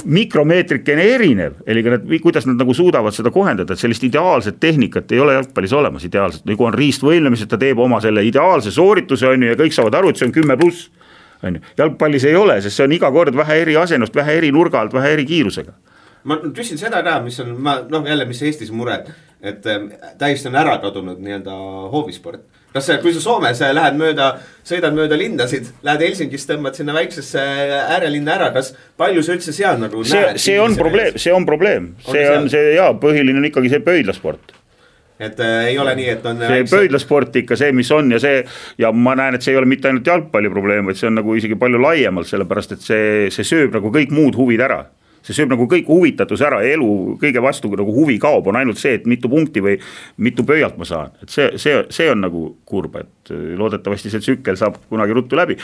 mikromeetrikene erinev, eli kuidas nad nagu suudavad seda kohendada, et sellist ideaalset tehnikat ei ole jalgpallis olemas ideaalselt, nagu on riistvõimlemised, ta teeb oma selle ideaalse soorituse on ju, ja kõik saavad aru, et see on 10+. On ju. Jalgpallis ei ole, sest see on iga kord vähe eri asendust, vähe eri nurga alt, vähe eri kiirusega. Ma küsin seda ka, mis on, jälle mis Eestis mure, et täiesti on ära kadunud nii-öelda hoovisport. Kas kui sa Soomes sõidad mööda lindasid, lähed Helsingist, tõmbad sinna väiksesse äärelinna ära, kas palju sa üldse seal nagu näed? See on probleem. Põhiline on ikkagi see pöidlasport. Et ei ole nii, et on see pöidlasport ikka see, mis on ja ma näen, et see ei ole mitte ainult jalgpalli probleem, vaid see on nagu isegi palju laiemalt, sellepärast et see sööb nagu kõik muud huvid ära. See sööb nagu kõik huvitatus ära, elu kõige vastu nagu huvi kaob, on ainult see, et mitu punkti või mitu pöialt ma saan. Et see on nagu kurb, et loodetavasti see tsükkel saab kunagi ruttu läbi.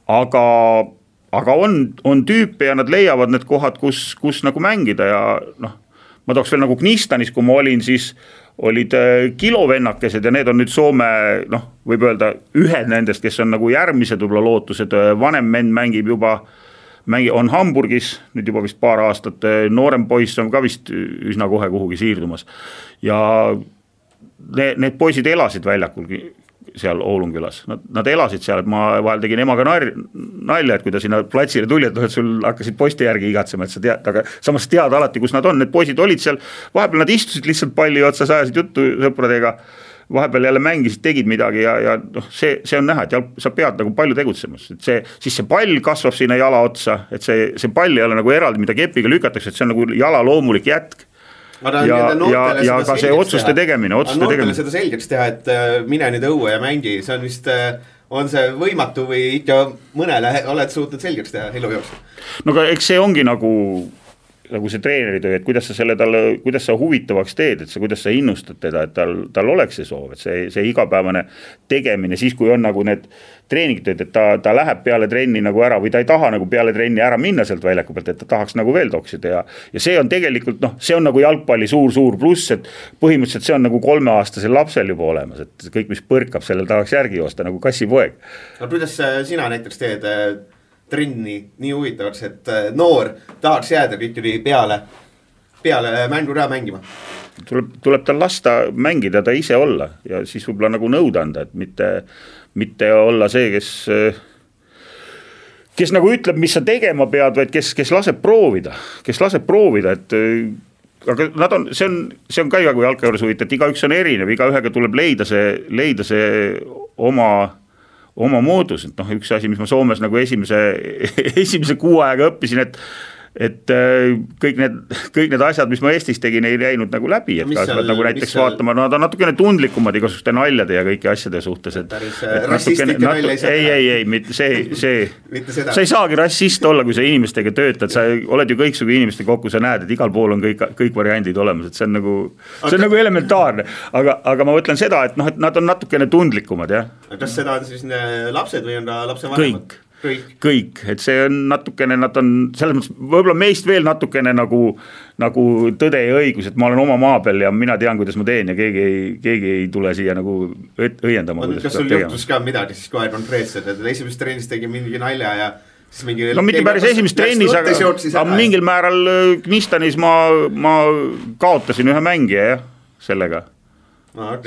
Aga on tüüpe ja nad leiavad need kohad, kus nagu mängida ja ma tooks veel nagu Knistanis, kui ma olin, siis olid kilovennakesed ja need on nüüd Soome, võib öelda ühed nendest, kes on nagu järgmised võib-olla lootused, vanem mend mängib juba on Hamburgis, nüüd juba vist paar aastat, noorem poiss on ka vist üsna kohe kuhugi siirdumas ja need poisid elasid väljakul seal Oulungülas, nad elasid seal, et ma vahel tegin emaga nalja, et kui ta sinna platsile tuli, et sul hakkasid poiste järgi igatsema, et sa tead, aga samas tead alati, kus nad on, need poisid olid seal, vahepeal nad istusid lihtsalt palli otsa, ajasid juttu sõpradega, vahepeal jälle mängisid, tegid midagi ja see on näha, et sa pead nagu palju tegutsemas, et siis see pall kasvab sinna jala otsa, et see pall ei ole nagu eraldi, mida kepiga lükatakse, et see on nagu jala loomulik jätk. Ja ka see otsuste tegemine. Noortele seda selgeks teha, et mine nüüd õue ja mängi, see on vist, on see võimatu või ikka mõnele oled suutnud selgeks teha elu jooksul? No aga eks see ongi nagu see treeneri töö, et kuidas sa huvitavaks teed, et kuidas sa innustad teda, et tal oleks see soov, et see igapäevane tegemine, siis kui on nagu need treeningtööd, et ta läheb peale trenni nagu ära või ta ei taha nagu peale trenni ära minna sealt väljaku pealt, et ta tahaks nagu veel toksida ja see on tegelikult, see on nagu jalgpalli suur pluss, et põhimõtteliselt see on nagu 3-aastasel lapsel juba olemas, et kõik, mis põrkab, sellel tahaks järgi joosta nagu kassipoeg. No kuidas sina näiteks teed trenni nii huvitavaks, et noor tahaks jääda ikkagi peale mängu ära mängima? Tuleb tal lasta mängida, ta ise olla ja siis võib-olla nagu nõuda anda, et mitte olla see, kes nagu ütleb, mis sa tegema pead, vaid kes laseb proovida, et aga see on ka iga kui jalkajuures huvitav, et igaüks on erinev, igaühega tuleb leida see oma moodus, et üks asi, mis ma Soomes nagu esimese kuu aega õppisin, et kõik need asjad, mis ma Eestis tegin, ei läinud nagu läbi, et ka seal, nagu näiteks vaatama, nad on natukene tundlikumad igasuguste naljade ja kõiki asjade suhtes, et rassistlikke nalja ei, sa ei saagi rassist olla, kui sa inimestega töötad, sa oled ju kõiksugu inimeste kokku, sa näed, et igal pool on kõik variandid olemas, et see on nagu elementaarne, aga ma mõtlen seda, et noh, et nad on natukene tundlikumad, jah. Kas seda on siis lapsed või on ta lapse vanemad? Kõik, et see on natukene, nad on selles mõttes, võib-olla meist veel natukene nagu tõde ja õigus, et ma olen oma maa peal ja mina tean, kuidas ma teen ja keegi ei tule siia nagu õiendama. Kas sul juhtus ka midagi siis kohe konkreetselt, et esimest trennis tegi mingi nalja ja siis mingi... No mitte päris esimest trennis, aga mingil määral Knistanis ma kaotasin ühe mängija, jah, sellega.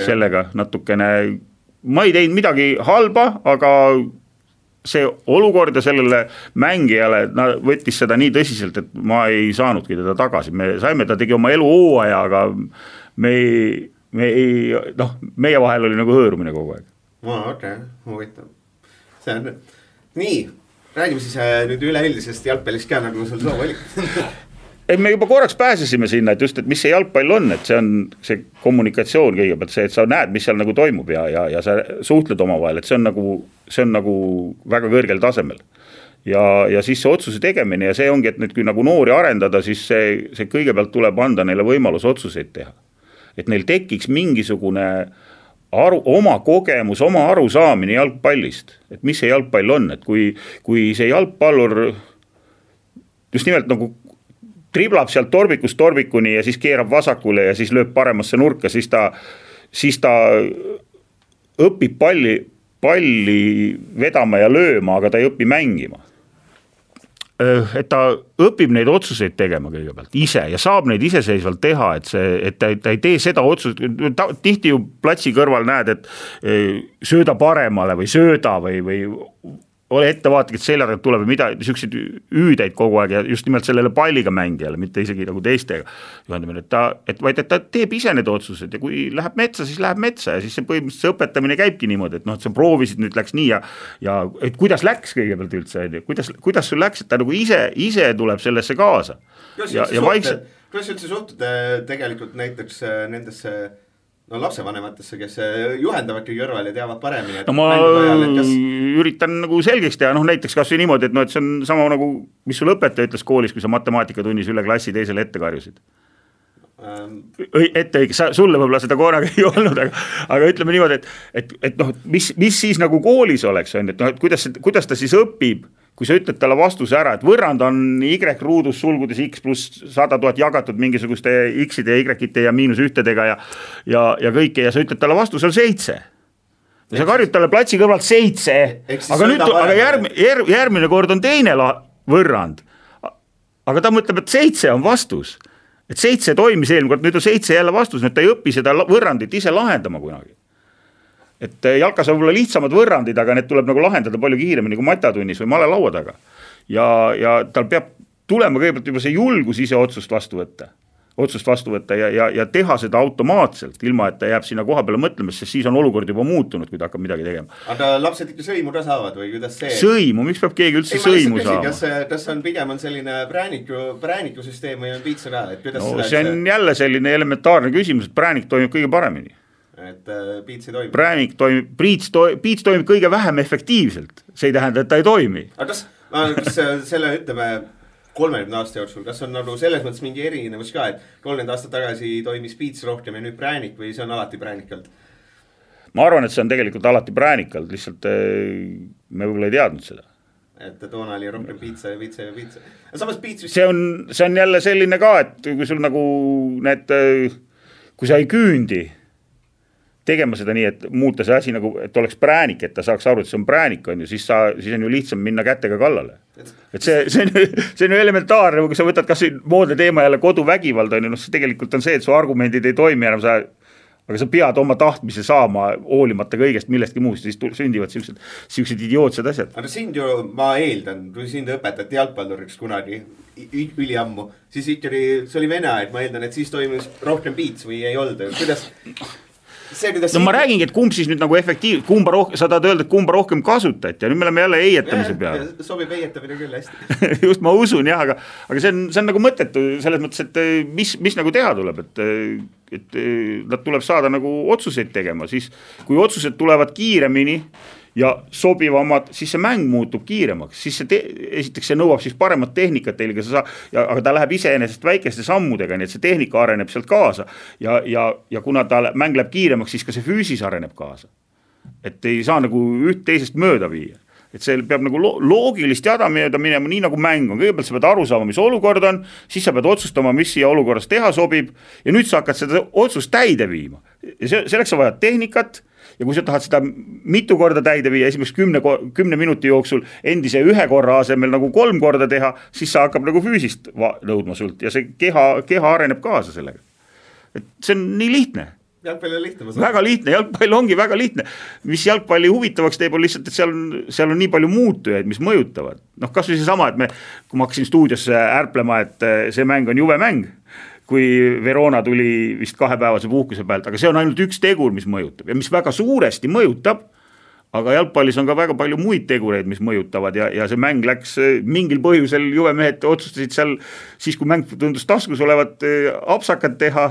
Sellega natukene, ma ei teinud midagi halba, aga see olukord ja sellele mängijale võttis seda nii tõsiselt, et ma ei saanudki teda tagasi. Me saime, ta tegi oma elu hooaja, aga meie vahel oli nagu hõõrumine kogu aeg. Okei, huvitav. See on nii, räägime siis nüüd üleüldisest jalgpallist ka, nagu sul soov oli. Me juba korraks pääsesime sinna, et just, et mis see jalgpall on, et see on see kommunikatsioon kõigepealt, see, et sa näed, mis seal nagu toimub ja sa suhtled omavahel, et see on nagu väga kõrgel tasemel. Ja siis see otsuse tegemine ja see ongi, et nüüd kui nagu noori arendada, siis see kõigepealt tuleb anda neile võimalus otsuseid teha. Et neil tekiks mingisugune oma kogemus, oma arusaamine jalgpallist, et mis see jalgpall on, et kui see jalgpallur just nimelt nagu triblab sealt torbikust torbikuni ja siis keerab vasakule ja siis lööb paremasse nurka, siis ta õpib palli vedama ja lööma, aga ta ei õpi mängima. Et ta õpib neid otsuseid tegema kõigepealt ise ja saab neid iseseisvalt teha, et ta ei tee seda otsust, tihti ju platsi kõrval näed, et sööda paremale või sööda või ole ettevaatlik, et selja tuleb või mida, niisuguseid üüdeid kogu aeg ja just nimelt sellele palliga mängijale, mitte isegi nagu teistega. Vaid et ta teeb ise need otsused ja kui läheb metsa, siis läheb metsa ja siis see põhimõtteliselt see õpetamine käibki niimoodi, et noh, et sa proovisid, nüüd läks nii ja et kuidas läks kõigepealt üldse, kuidas sul läks, et ta nagu ise tuleb sellesse kaasa. Kuidas üldse suhtud tegelikult näiteks nendesse lapsevanematesse, kes juhendavad kõige kõrval ja teavad paremini. No ma üritan nagu selgeks teha, näiteks kas või niimoodi, et see on sama nagu, mis sul õpetaja ütles koolis, kui sa matemaatikatunnis üle klassi teisele ette karjusid. Sulle võib-olla seda korraga ei olnud, aga ütleme niimoodi, et mis siis nagu koolis oleks, et kuidas ta siis õpib, kui sa ütled talle vastuse ära, et võrrand on Y ruudus sulgudes X pluss 100 000 jagatud mingisuguste X-ide, Y-ite ja miinus ühtedega ja kõike ja sa ütled talle vastuse on 7. Ja sa karjud talle platsi kõrvalt 7, aga järgmine kord on teine võrrand. Aga ta mõtleb, et 7 on vastus. Et 7 toimis eelmine kord, nüüd on 7 jälle vastus, nüüd ta ei õpi seda võrrandit ise lahendama kunagi. Et jalkas on võib-olla lihtsamad võrrandid, aga need tuleb nagu lahendada palju kiiremini kui matatunnis või malelaua taga. Ja tal peab tulema kõigepealt juba see julgus ise otsust vastu võtta ja teha seda automaatselt, ilma et ta jääb sinna koha peale mõtlemas, sest siis on olukord juba muutunud, kui ta hakkab midagi tegema. Aga lapsed ikka sõimu ka saavad või kuidas see? Sõimu, miks peab keegi üldse sõimu saama? Kas on pigem on selline präänikusüsteem või on piitsa ka? See on jälle selline elementaarne küsimus, et präänik toimib kõige paremini. Et piits ei toimi. Piits toimib kõige vähem efektiivselt. See ei tähenda, et ta ei toimi. Aga kas selle ütleme 30 aasta jooksul, kas on nagu selles mõttes mingi erinevus ka, et 30 aastat tagasi toimis piits rohkem ja nüüd präänik või see on alati präänikalt? Ma arvan, et see on tegelikult alati präänikalt, lihtsalt me võib-olla ei teadnud seda. Et toona oli rohkem piitsa. Samas piits... See on jälle selline ka, et kui sul nagu kui sa ei küündi tegema seda nii, et muuta see asi nagu, et oleks präänik, et ta saaks aru, et see on präänik, on ju, siis on ju lihtsam minna kätega kallale. Et see on ju elementaarne, kui sa võtad kas moodne teema jälle koduvägivald, on ju, see tegelikult on see, et su argumendid ei toimi enam, aga sa pead oma tahtmise saama hoolimata kõigest millestki muust, siis sündivad siuksed idiootsed asjad. Aga sind ju, ma eeldan, kui sind õpetati jalgpalluriks kunagi üliammu, siis ikkagi see oli vene aeg, ma eeldan, et siis toimus rohkem piits või ei olnud, kuidas... no ma räägingi, et kumb siis nüüd nagu sa tahad öelda, et kumba rohkem kasutati ja nüüd me oleme jälle eietamise peale. Sobib eietamine küll hästi. Just ma usun jah, aga see on nagu mõttetu selles mõttes, et mis nagu teha tuleb, et nad tuleb saada nagu otsuseid tegema, siis kui otsused tulevad kiiremini ja sobivamad, siis see mäng muutub kiiremaks, siis esiteks see nõuab siis paremat tehnikat teil, aga ta läheb iseenesest väikeste sammudega, nii et see tehnika areneb sealt kaasa ja kuna mäng läheb kiiremaks, siis ka see füüsis areneb kaasa. Et ei saa nagu üht teisest mööda viia. Et see peab nagu loogilist jada mööda minema, nii nagu mäng on. Kõigepealt sa pead aru saama, mis olukord on, siis sa pead otsustama, mis siia olukorras teha sobib ja nüüd sa hakkad seda otsust täide viima. Ja selleks sa vajad tehnikat ja kui sa tahad seda mitu korda täide viia, esimest 10 minuti jooksul endise 1 korra asemel nagu 3 korda teha, siis sa hakkab nagu füüsist nõudma sult ja see keha areneb kaasa sellega. Et see on nii lihtne. Jalgpall on lihtne. Väga lihtne, jalgpall ongi väga lihtne. Mis jalgpalli huvitavaks teeb on lihtsalt, et seal on nii palju muutujaid, mis mõjutavad. Noh, kas või see sama, et kui ma hakkasin stuudiosse ärplema, et see mäng on juve mäng, kui Verona tuli vist 2-päevase puhkuse pealt, aga see on ainult üks tegur, mis mõjutab ja mis väga suuresti mõjutab, aga jalgpallis on ka väga palju muid tegureid, mis mõjutavad ja see mäng läks mingil põhjusel, juvemehed otsustasid seal, siis kui mäng tundus taskus olevat apsakad teha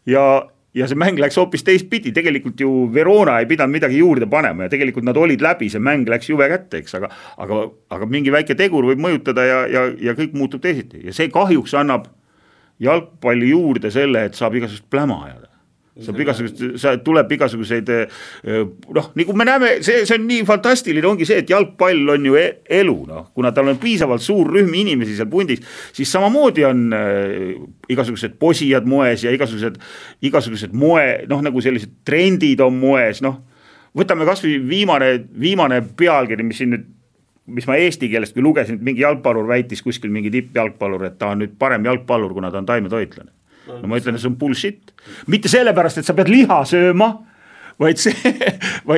ja see mäng läks hoopis teistpidi, tegelikult ju Verona ei pidanud midagi juurde panema ja tegelikult nad olid läbi, see mäng läks juve kätte, eks, aga mingi väike tegur võib mõjutada ja kõik muutub teisiti ja see kahjuks annab jalgpalli juurde selle, et saab igasugust pläma ajada. Tuleb igasuguseid, nagu me näeme, see on nii fantastiline, ongi see, et jalgpall on ju elu, kuna tal on piisavalt suur rühm inimesi seal pundis, siis samamoodi on igasugused posijad moes ja igasugused moe, nagu sellised trendid on moes, võtame kas või viimane pealkiri, mis ma eesti keelest kui lugesin, et mingi jalgpallur väitis kuskil mingi tippjalgpallur, et ta on nüüd parem jalgpallur, kuna ta on taimetoitlane. No ma ütlen, et see on bullshit. Mitte sellepärast, et sa pead liha sööma, vaid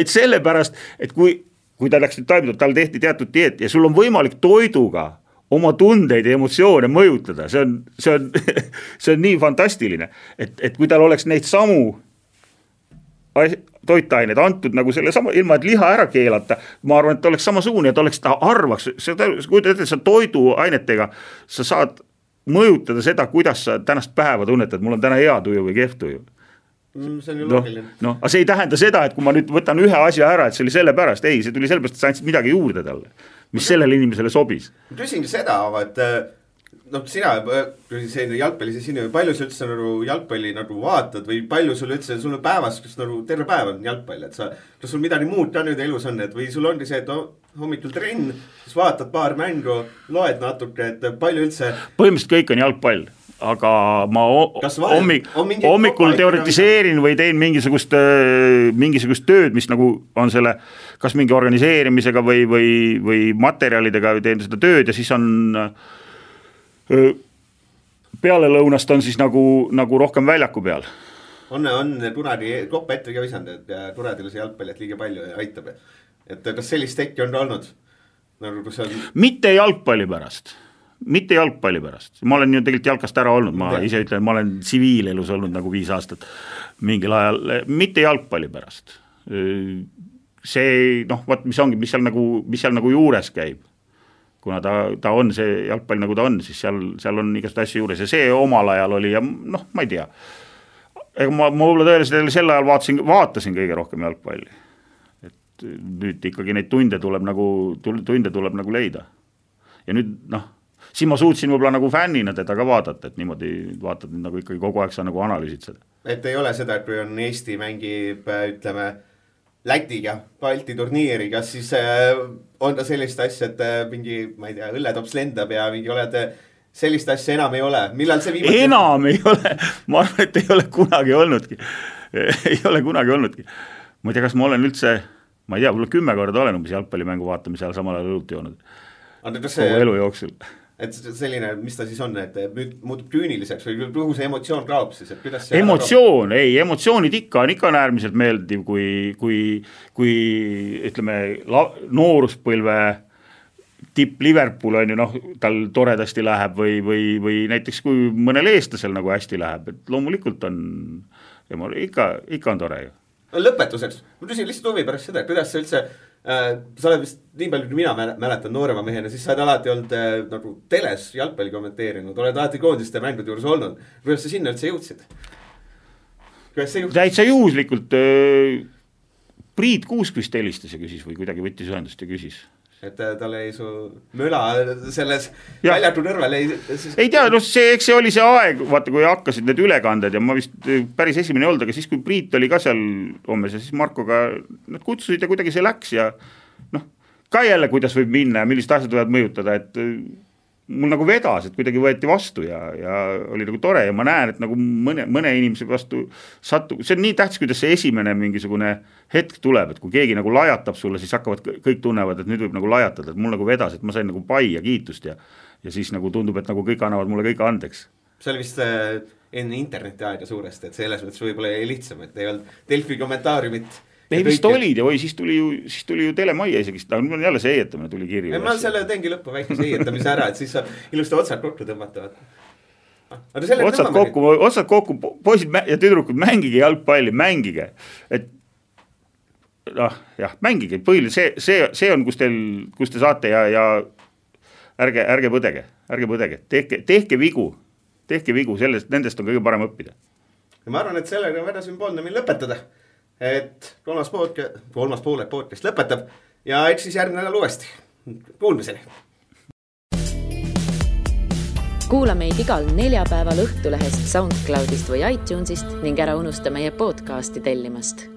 sellepärast, et kui ta läks nüüd taimetoitlane, tal tehti teatud dieet ja sul on võimalik toiduga oma tundeid ja emotsioone mõjutada. See on nii fantastiline, et kui tal oleks neid samu toitained antud nagu selle sama, ilma et liha ära keelata, ma arvan, et ta oleks samasugune, et ta arvaks, sa toiduainetega, sa saad mõjutada seda, kuidas sa tänast päeva tunnetad, mul on täna hea tuju või kehv tuju. See on ju loogiline. Aga see ei tähenda seda, et kui ma nüüd võtan ühe asja ära, et see oli sellepärast, ei, see tuli sellepärast, et sa andsid midagi juurde talle, mis sellele inimesele sobis. Ma küsingi seda, et sina, jalgpallis sinu, palju sa üldse jalgpalli vaatad või palju sul üldse, sul on päevas, kus terve päev on jalgpall, et kas sul midagi muud ka nüüd elus on, et või sul ongi see, et hommikul trenn, siis vaatad paar mängu, loed natuke, et palju üldse. Põhimõtteliselt kõik on jalgpall, aga ma hommikul teoretiseerin või teen mingisugust tööd, mis nagu on selle, kas mingi organiseerimisega või materjalidega teen seda tööd ja siis on peale lõunast on siis nagu rohkem väljaku peal. On Tunari koppa ette ka visanud, et Turadile see jalgpalli, et liiga palju aitab. Et kas sellist tekki on olnud? Mitte jalgpalli pärast. Ma olen ju tegelikult jalkast ära olnud, ma ise ütlen, ma olen tsiviilelus olnud nagu 5 aastat mingil ajal, mitte jalgpalli pärast. See, mis seal nagu juures käib. Kuna ta on see jalgpall nagu ta on, siis seal on igast asju juures ja see omal ajal oli ja ma ei tea. Ega ma võib-olla tõeliselt sel ajal vaatasin kõige rohkem jalgpalli. Et nüüd ikkagi neid tunde tuleb nagu leida. Ja nüüd, siin ma suutsin võib-olla nagu fännina teda ka vaadata, et niimoodi vaatad nagu ikkagi kogu aeg sa nagu analüüsid seda. Et ei ole seda, et kui on Eesti mängib, ütleme, Lätiga, Balti turniiri, kas siis on ta sellist asja, et mingi, ma ei tea, õlletops lendab ja mingi oled, sellist asja enam ei ole. Millal see viimati? Enam ei ole, ma arvan, et ei ole kunagi olnudki. Ma ei tea, kas ma olen üldse, ma ei tea, võib-olla 10 korda olen umbes jalgpallimängu vaatamise ajal samal ajal õlut joonud. Kogu elu jooksul. Et selline, mis ta siis on, et nüüd muutub küüniliseks või kuhu see emotsioon kaob siis, et kuidas see emotsioonid ikka on äärmiselt meeldiv, kui ütleme, nooruspõlve tipp Liverpool on ju, tal toredasti läheb või näiteks kui mõnel eestlasel nagu hästi läheb, et loomulikult on, ikka on tore ju. lõpetuseks, ma küsin lihtsalt huvi pärast seda, kuidas sa üldse, sa oled vist nii palju, kui mina mäletan noorema mehena, siis sa oled alati olnud nagu teles jalgpalli kommenteerinud, oled alati koondiste mängude juures olnud. Kuidas sa sinna üldse jõudsid? Täitsa juhuslikult Priit Kuuskvist helistas ja küsis või kuidagi võttis ühendust ja küsis. Et tal ei su möla selles väljatu nõrvel ei tea, no eks see oli see aeg, vaata kui hakkasid need ülekanded ja ma vist päris esimene olnud, aga siis kui Priit oli ka seal hommes ja siis Markoga nad kutsusid ja kuidagi see läks ja noh, ka jälle kuidas võib minna ja millised asjad võivad mõjutada, et mul nagu vedas, et kuidagi võeti vastu ja oli nagu tore ja ma näen, et nagu mõne inimese vastu sattu, see on nii tähtis, kuidas see esimene mingisugune hetk tuleb, et kui keegi nagu lajatab sulle, siis hakkavad kõik tunnevad, et nüüd võib nagu lajatada, et mul nagu vedas, et ma sain nagu pai ja kiitust ja siis nagu tundub, et nagu kõik annavad mulle kõik andeks. See oli vist enne interneti aega suuresti, et selles mõttes võib-olla ei lihtsam, et ei olnud Delfi kommentaariumit. Ei vist olid ja siis tuli ju Telemaia isegi, aga jälle see eietamine tuli kirju. Ma selle teengi lõppu väikese eietamise ära, et siis saab ilusti otsad kokku tõmmata. Otsad kokku, poisid ja tüdrukud, mängige jalgpalli, mängige. Et jah, mängige, põhiline, see on, kus te saate ja ärge põdege, tehke vigu, nendest on kõige parem õppida. Ja ma arvan, et sellega on väga sümboolne meil lõpetada. Et kolmas poole podcast lõpetab ja eks siis järgmine nädal uuesti. Kuulmiseni. Kuula meid igal neljapäeval Õhtulehest, SoundCloudist või iTunesist ning ära unusta meie podcasti tellimast.